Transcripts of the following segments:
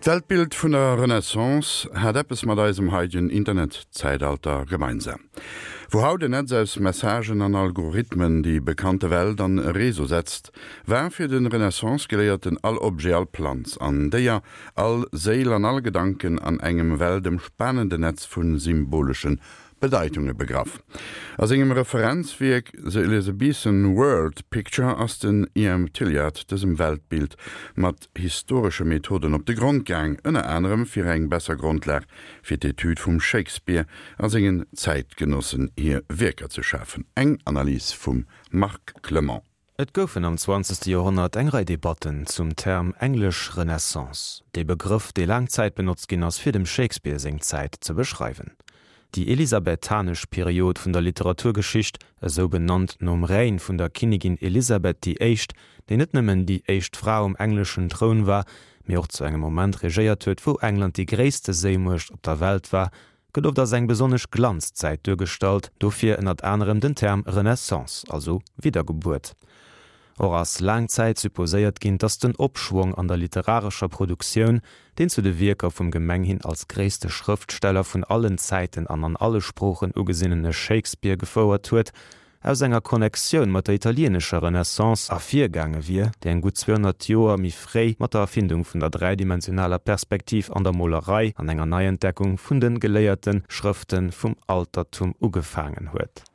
D'Weltbild vun der Renaissance hat eppes mat eisem haidegen Internetzäitalter gemeinsam. Wou haut en Netz aus Messagen an Algorithmen déi bekannte Welt an e Réseau setzt, war fir de Renaissance-Geléierten all Objet, all Planz an Déier, all Séil an all Gedanken an engem weltëmspanende Netz vu symboleschen Bedeitunge begraff. A sengem Referenzwierk The Elizabethan World Picture ass den E. M. Tillyard dësem Weltbild mat historesche Methoden op de Grond gaang, ënner anerem fir eng besser Grondlag fir d'Etüd vum Shakespeare a sengen Zäitgenossen hir Wierker ze schafen. Eng Analys vum Marc Clement. Et goufen am zwanzegste Joerhonnert eng Rei Debatten zum Term englesch Renaissance, dee Begrëff, dee laang Zäit benotzt ginn ass, fir dem Shakespeare seng Zäit ze beschreiwen. Déi elisabethanesch Period vun der Literaturgeschicht, esou benannt nom Règne vun der Kinnigin Elisabeth déi Éischt, déi net nëmmen déi éischt Fra um engleschen Troun war, mee och zu engem Moment regéiert huet, wou England déi gréisste Séimuecht op der Welt war, gëtt oft als eng besonnesch Glanzzäit duergestallt, dofir ënnert anerem den Term Renaissance, also Widdergebuert. Och ass laang Zäit supposéiert ginn, datt den Opschwong an der literarescher Produktioun, deen zu de Wierker vum gemenghin als gréisste Schrëftsteller vun allen Zäiten an an alle Sproochen ugesinnene Shakespeare gefouert huet, aus enger Connectioun mat der italieenescher Renaissance ervirgaange wier, déi eng gutt 200 Joer méi fréi mat der Erfindung vun der dräidimensionaler Perspektiv an der Molerei an enger Neientdeckung vun de geléierte Schrëfte vum Altertum ugefaangen huet.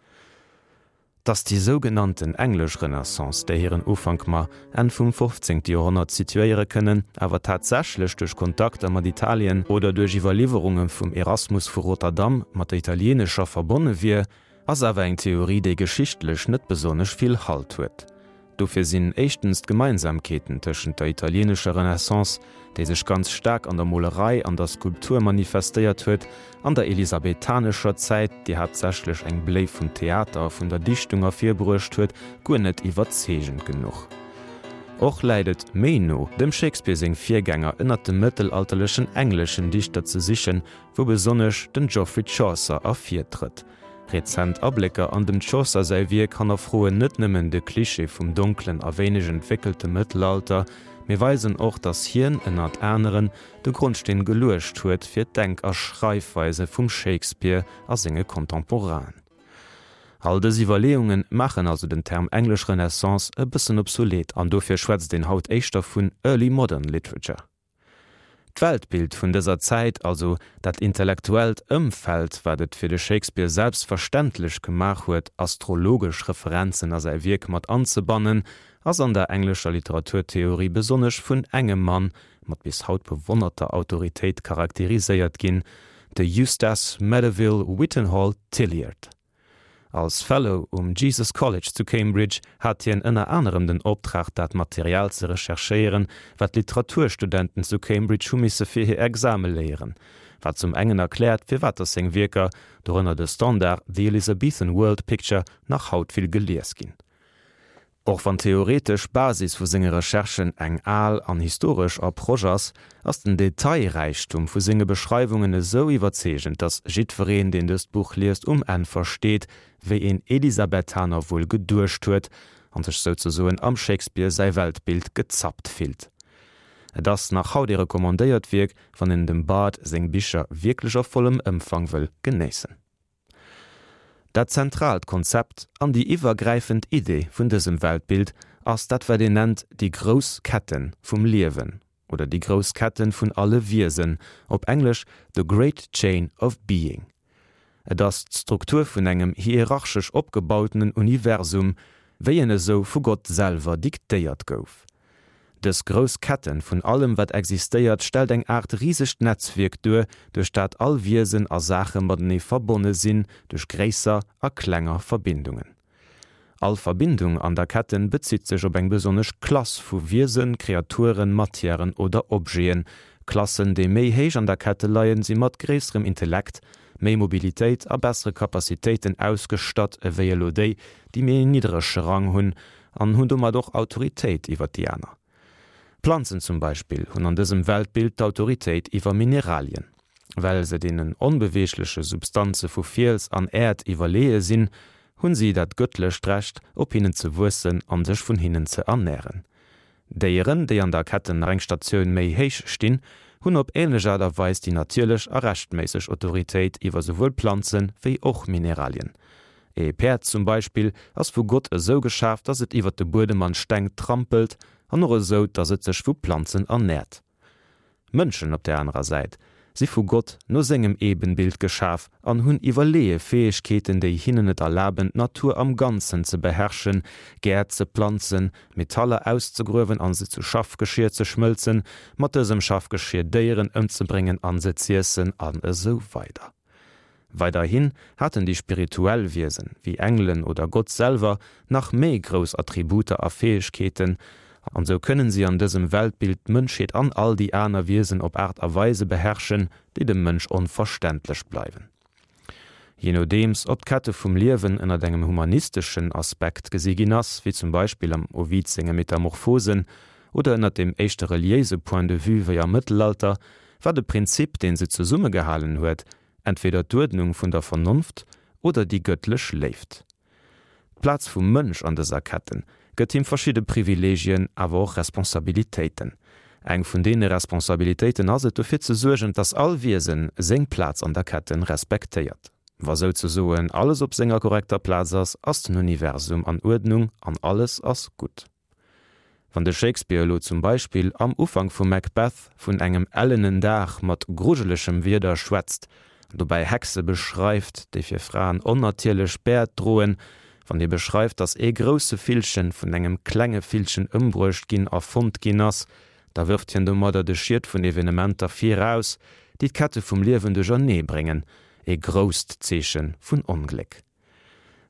Datt déi sougenannten englesch Renaissance, där hiren Ufank mer Enn vum 15. Joerhonnert situéiere kënnen, awer tatsächlech duerch Kontakter mat Italien oder duerch Iwwerliwwerunge vum Erasmus vu Rotterdam mat der italieenescher verbonne wier, Ass awer eng Theorie, déi geschichtlech net besonnesch vill Halt huet. Dofir sinn éischtens d'Gemeinsamkeeten tëschent der italieenescher Renaissance, déi sech ganz staark an der Molerei an der Skulptur manifestéiert huet, an der elisabethanescher Zäit, déi haaptsächlech eng Bléi vum Theater a vun der Dichtung ervirbruecht huet, guer net iwwerzeegend genuch. Och läit et méi no, dem Shakespeare seng Virgänger ënnert de mëttelalterlechen engleschen Dichter ze sichen, wou besonnesch den Geoffrey Chaucer ervirtrëtt. Rezent Ablécker an dem Chaucer säi Wierk hannerfroen net nëmmen de Klischee vum donklen a wéineg entwéckelte Mëttelalter, mee weisen och, datt hien, ënnert aneren, de Grondsteen geluecht huet fir d'Denk a Schreifweise vum Shakespeare a senge Contemporainen. All dës Iwwerleeunge maachen also den Term englesch Renaissance e bëssen obsolet an dofir schwätzt een haut éischter vun Early Modern Literature. D'Weltbild vun dëser Zäit, also dat intellektuellt Ëmfeld, wat et fir de Shakespeare selbstverständlech gemaach huet, astrologesch Referenzen a säi Wierk mat anzebannen, ass an der englescher Literaturtheorie besonnesch vun engem Mann mat bis haut bewonnerter Autoritéit charakteriséiert ginn, de Eustace Medeville Whittenhall Tillyard. Als Fellow um Jesus College zu Cambridge hat hien ënner anerem den Optrag dat Material ze recherchéieren, wat d'Literaturstudenten zu Cambridge hu misse fir hir Exame léieren, wat zum engen erkläert, firwat datt seng Wierker, dorënner de Standard The Elizabethan World Picture, nach haut vill gelies ginn. Och wann d'theoretesch Basis vu senge Recherchen eng al an historesch Approche ass, ass den Detailräichtum vu senge Beschreiwungen esou iwwerzeegend, datt jiddwereen, deen dëst Buch liest, um Enn versteet, wéi een Elisabethaner wuel geduecht huet an sech souzesoen am Shakespeare säi Weltbild gezappt fillt. Et ass nach haut ee recommandéiert Wierk, wann een dem Bard seng Bicher wierklech a vollem Ëmfang wëll genéissen. Dat zentraalt Konzept an déi iwwergräifend Idee vun dësem Weltbild ass dat wat een nennt déi grouss Ketten vum Liewen oder déi grouss Ketten vun alle Wiesen, op Englesch the great chain of being. Et ass d'Struktur vun engem hierarchesch opgebautenen Universum, wéi en esou vu Gott selwer diktéiert gouf. Dës grouss Ketten vun allem wat existéiert stellt eng Aart risegt Netzwierk duer, duerch dat all Wiesen a Saache matenee verbonne sinn duerch gréisser a klenger Verbindungen. All Verbindung an der Ketten bezitt sech op eng besonnesch Klass vu Wiesen, Kreaturen, Matièren oder Objeten. Klassen déi méi héich an der Kette leien si mat gréisserem Intellekt, méi Mobilitéit a bessere Capacitéiten ausgestatt ewéi elo déi, déi méi en niddrege Rang hunn an hunn domat och Autoritéit iwwer déi aner. Planzen zum Beispill hunn an dësem Weltbild d'Autoritéit iwwer Mineralien. Well se deenen onbeweegleche Substanze vu Fiels an Äerd iwwerleeë sinn, hunn si dat gëttlecht Recht, op hinnen ze wuessen an sech vun hinnen ze ernären. Déieren, déi an der Ketten nach eng Statioun méi héich stinn, hunn op änlech Aart a Weis déi natierlech a rechtméisseg Autoritéit iwwer souwuel Planze wéi och Mineralien. Ee Päerd zum Beispill ass vu Gott esou geschaf, dass et iwwer de Buedem an d'Steng trampelt an och esou, dass et sech vu Planzen ernäert. Mënschen op der anerer Säit si vu Gott no sengem Ebenbild geschaf an hunn iwwerleeë Fäegkeeten, déi hinnen et erlaben, d'Natur am Ganzen ze beherrschen, Gäert ze planzen, Metaller auszegruewen an se zu Schaffgeschier ze schmëlzen, mat dësem Schaffgeschier Déieren ëmzebréngen an se z'iessen an esou weider. Weiderhin haten déi spirituell Wiesen, wéi Engelen oder Gott selwer, nach méi grouss Attributer a Fäegkeeten, an sou kënnen si an dësem Weltbild d'Mënschheet an all déi aner Wiesen op Aart a Weise beherrschen, déi dem Mënsch onverständlech bleiwen. Jee nodeems ob d'Kette vum Liewen ënnert engem humanisteschen Aspekt gesi ginn ass, wéi zum Beispill am Ovid senge Metamorphosen, oder ënnert dem éischter reliéise Point de vue wéi am Mëttelalter, war de Prinzip, deen se zesummegehalen huet, entweder d'Uerdnung vun der Vernonft oder déi gëttlech Léift. D'Plaz vum Mënsch an dëser Ketten gëtt him verschidde Privilegien, awer och Responsabilitéiten. Eng vun deene Responsabilitéiten ass et, dofir ze suergen, dass all Wiesen seng Plaz an der Ketten respektéiert. Wa souzesoen alles op senger korrekter Plaz ass, ass den Universum an Uerdnung an alles ass gutt. Wann de Shakespeare elo zum Beispill am Ufank vu Macbeth vun engem ellenen Dag mat grujelechem Wieder schwätzt, an dobäi Hexe beschreift, déi fir Fraen onnatierlech Bäert droen, wann hie beschreift, datt ee grousse Villchen vun engem klenge Villchen ëmbruecht ginn a fonnt ginn ass, da wërft hien domadder de Schiet vun Evenementer viraus, déi d'Kette vum Liewen duerchernee bréngen, ee grousst Zeeche vun Ongléck.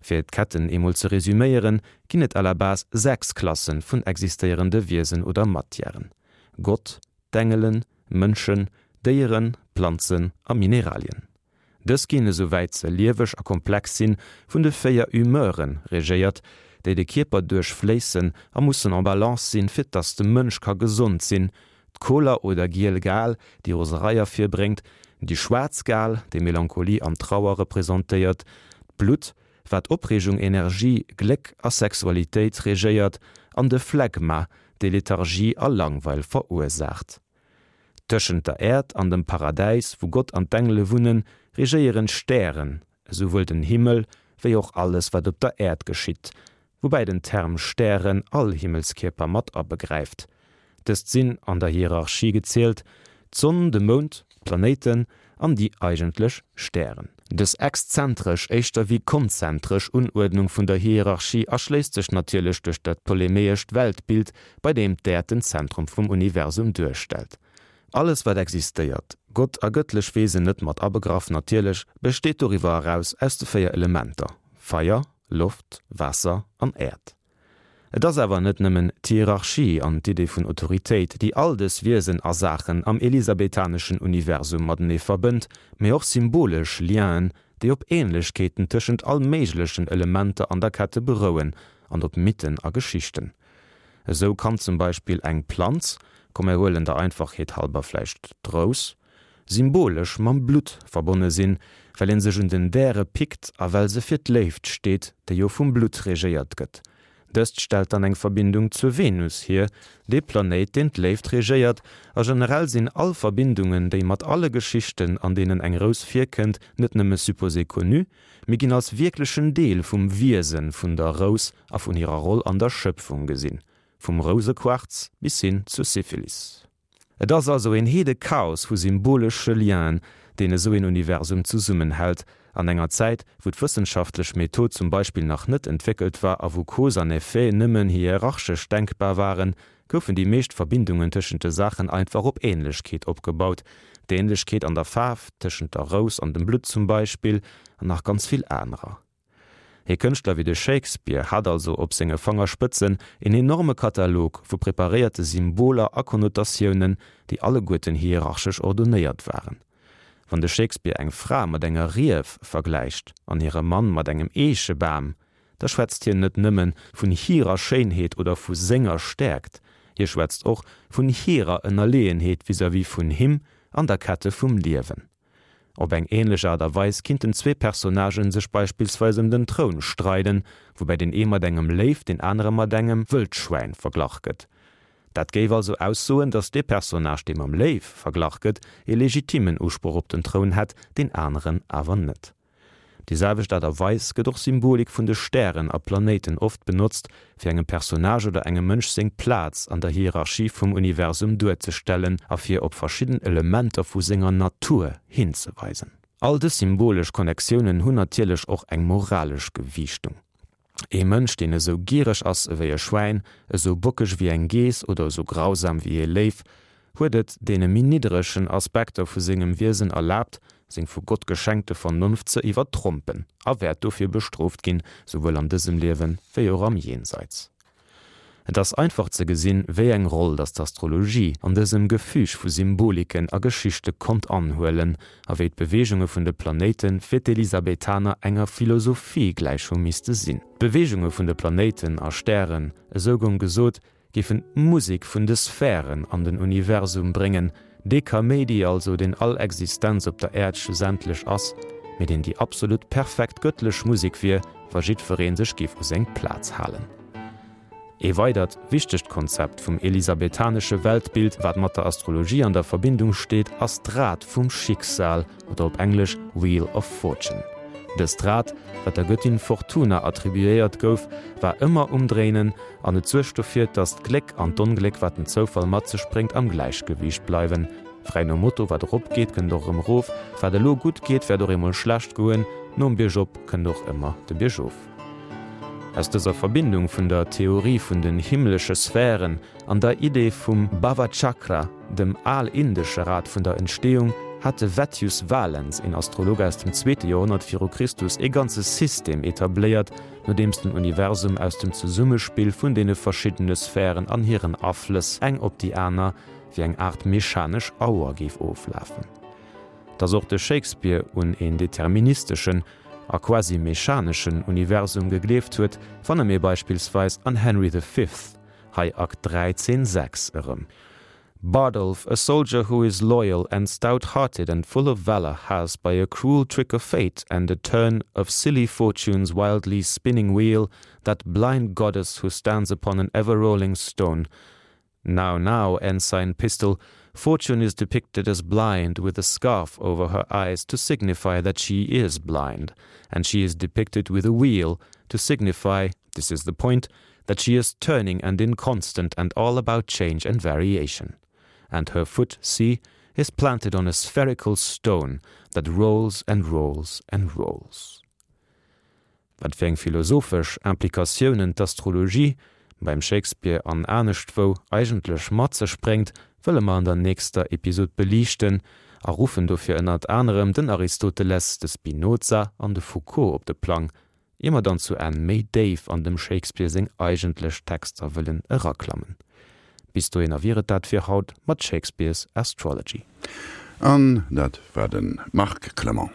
Fir d'Ketten eemol ze resüméieren, ginn et à la base 6 Klassen vun existéierende Wiesen oder Matièren, Gott, d'Engelen, Mënschen, Déieren, Planzen a Mineralien. Dës ginn, esouwäit se lieweg a komplex sinn, vun de 4 Humeuren regéiert, déi de Kierper duerchfléissen a mussen en balance sinn, fir dass de Mënsch ka gesond sinn, D'Koler oder giel Gal, déi Roserei ervirbréngt, déi schwaarz Gal, déi Melancholie an Trauer representéiert, d'Blutt, wat Opreegung, Energie, Gléck a Sexualitéit regéiert, an de Phlegma, dee Lethargie a Langweil verursaacht. Tëschent der Äerd an dem Paradäis, wou Gott an d'Engele wunnen, regéieren d'Stären, esouwuel den Himmel wéi och alles, wat op der Äerd geschitt, woubäi den Term Stären all Himmelskierper mat abegräift. Dëst sinn, an der Hierarchie gezielt, d'Sonn, de Mound, d'Planéiten an déi eigentlech Stären. Dës exzentresch éischter wéi konzentresch Unuerdnung vun der Hierarchie erschléisst sech natierlech duerch dat ptolemäescht Weltbild, bei deem d'Äerd den Zentrum vum Universum duerstellt. Alles wat existéiert, Gott a gëttlech Wesen net mat abegraff natierlech, besteet doriwwer eraus aus de 4 Elementer, Feier, Loft, Waasser an Äerd. Et ass awer net nëmmen d'Hierarchie an d'Idee vun Autoritéit, déi all dës Wiesen a Saachen am elisabethaneschen Universum matenee verbënnt, mee och symbolesch Lienen, déi op Ähnlechkeeten tëschent all méiglechen Elementer an der Kette berouen an op Mythen a Geschichten. Esou kann zum Beispill eng Planz, komm mir huelen der Einfachheet halber vläicht d'Rous, symbolesch mam Blutt verbonne sinn, well een sech un den Däre pickt a well se fir d'Léift steet, déi jo vum Blutt regéiert gëtt. Dëst stellt dann eng Verbindung zur Venus hier, dee Planéit deen d'Léift regéiert, a generell sinn all Verbindungen, déi mat alle Geschichten an deenen eng Rous virkënnt, net nëmme supposé connu, mee ginn als wierklechen Deel vum Wiese vun der Rous a vun hirer Roll an der Schëpfung gesinn, vum Rousequarz bis hin zur Syphilis. Et ass also een heede Chaos vu symbolesche Lienen, deen esou een Universum zesummenhält. An enger Zäit, wou d'wëssenschaftlech Method zum Beispill nach net entwéckelt war a wou Cause an Effet nëmmen hierarchesch denkbar waren, goufen déi meescht Verbindungen tëschent de Saachen einfach op Ähnlechkeet opgebaut, d'Ähnlechkeet an der Faarf tëschent der Rous an dem Blutt zum Beispill, an nach ganz vill anerer. Ee Kënschtler wéi de Shakespeare hat also op senge Fangerspëtzen een enorme Katalog vu preparéierte Symboler a Konnotatiounen, déi alleguerten hierarchesch ordonéiert waren. Wann de Shakespeare eng Fra mat enger Rief vergläicht an hire Mann mat engem Eechebam, da schwätzt hien net nëmme vun hirer Schéinheet oder vu senger Stäerkt, hie schwätzt och vun hirer Ënnerleeënheet vis-à-vis vun him an der Kette vum Liewen. Op eng ähnlech Aart a Weis kinnten zwee Personnagen sech beispillsweis ëm den Troun streiden, woubäi deen ee mat engem Léiw, deen anere mat engem Wëldschwäin verglach gëtt. Dat géif also aussoen, datt dee Personnage, dee mam Léiw verglach gëtt, ee legitimmen Usproch op den Troun hätt, deen aneren awer net. Op déi selwecht Aart a Weis gëtt och Symbolik vun de Stären a Planéiten oft benotzt, fir engem Personnage oder engem Mënsch seng Plaz an der Hierarchie vum Universum duerzestellen a fir op verschidden Elementer vu senger Natur hinzeweisen. All dës symbolesch Connectiounen hunn natierlech och eng moralesch Gewiichtung. Ee Mënsch, deen esou giereg ass ewéi e Schwäin, esou bockeg ewéi eng Geess oder esou grausam ewéi ee Léiw, huet et deene méi nidderegen Aspekter vu sengem Wiesen erlaabt, seng vu Gott geschenkte Vernonft ze iwwertrompen a wäert dofir bestrooft ginn, souwuel an dësem Liewe wéi och am Jenseits. Et ass einfach ze gesinn, wéi eng Roll datt d'Astrologie an dësem Gefüg vu Symboliken a Geschichte konnt anhuelen a wéi d'Beweegunge vun de Planéite fir d'Elisabethaner enger Philosophie gläich hu misste sinn. D'Beweegunge vun de Planéiten a Stären, esou goung gesot, géifen d'Musek vun de Sphären an den Universum bréngen, dee Kaméidi also, deen all Existenz op der Äerd schlussendlech ass, mee deen déi absolut perfekt gëttlech Musek wier, wa jiddweree sech géif u seng Plaz halen. Ee weidert wichtegt Konzept vum elisabethanesche Weltbild, wat mat der Astrologie an der Verbindung steet, ass d'Rad vum Schicksal oder op Englesch Wheel of Fortune. Dëst Rad, wat der Gëttin Fortuna attribuéiert gouf, war ëmmer um Dréinen an et suergt dofir, dass d'Gléck an d'Ongléck, wat den Zoufall mat sech bréngt, am Gläichgewiicht bleiwen. Fräi nom Motto, Wat erop geet, kënnt och erëm erof, wat elo gutt geet, wäert och eemol schlecht goen, nom Biergop kënnt och ëmmer de Biergof. Aus dëser Verbindung vun der Theorie vun den himmlesche Sphären an der Idee vum Bhavachakra, dem al-indesche Rad vun der Entstehung, hat de Vettius Valens, een Astrolog aus dem zweete Joerhonnert viru Christus, ee ganze System etabléiert, nodeems den Universum aus dem Zesummespill vun deene verschiddene Sphären an hiren Aflëss eng op déi aner wéi eng Aart mechanesch Auer géif oflafen. Datt och de Shakespeare un een deterministeschen a quasi mechaneschen Universum gegleeft huet, fanne mir beispillsweis an Henry the Fifth, hei Akt 3, Zeen 6, erëm. Bardolph, a soldier who is loyal and stout-hearted and full of valour, has, by a cruel trick of fate and a turn of silly fortune's wildly spinning wheel, that blind goddess who stands upon an ever-rolling stone, Now, now, Ensign Pistol, Fortune is depicted as blind with a scarf over her eyes to signify that she is blind, and she is depicted with a wheel to signify, this is the point, that she is turning and inconstant and all about change and variation. And her foot, see, is planted on a spherical stone that rolls and rolls and rolls. Wat fir eng philosophesch Implikatiounen d'Astrologie, beim Shakespeare an aneschtwou, eigentlech mat sech bréngt, wëlle mer an der nächster Episod beliichten a ruffen dofir ënnert anerem den Aristoteles, de Spinoza an de Foucault op de Plang, ier mer dann zu Enn méi déif an dem Shakespeare seng eigentlech Texter wëllen eraklammen. Bis dohinner wier et dat fir haut mat Shakespeare's Astrology. An dat war de Marc Clement.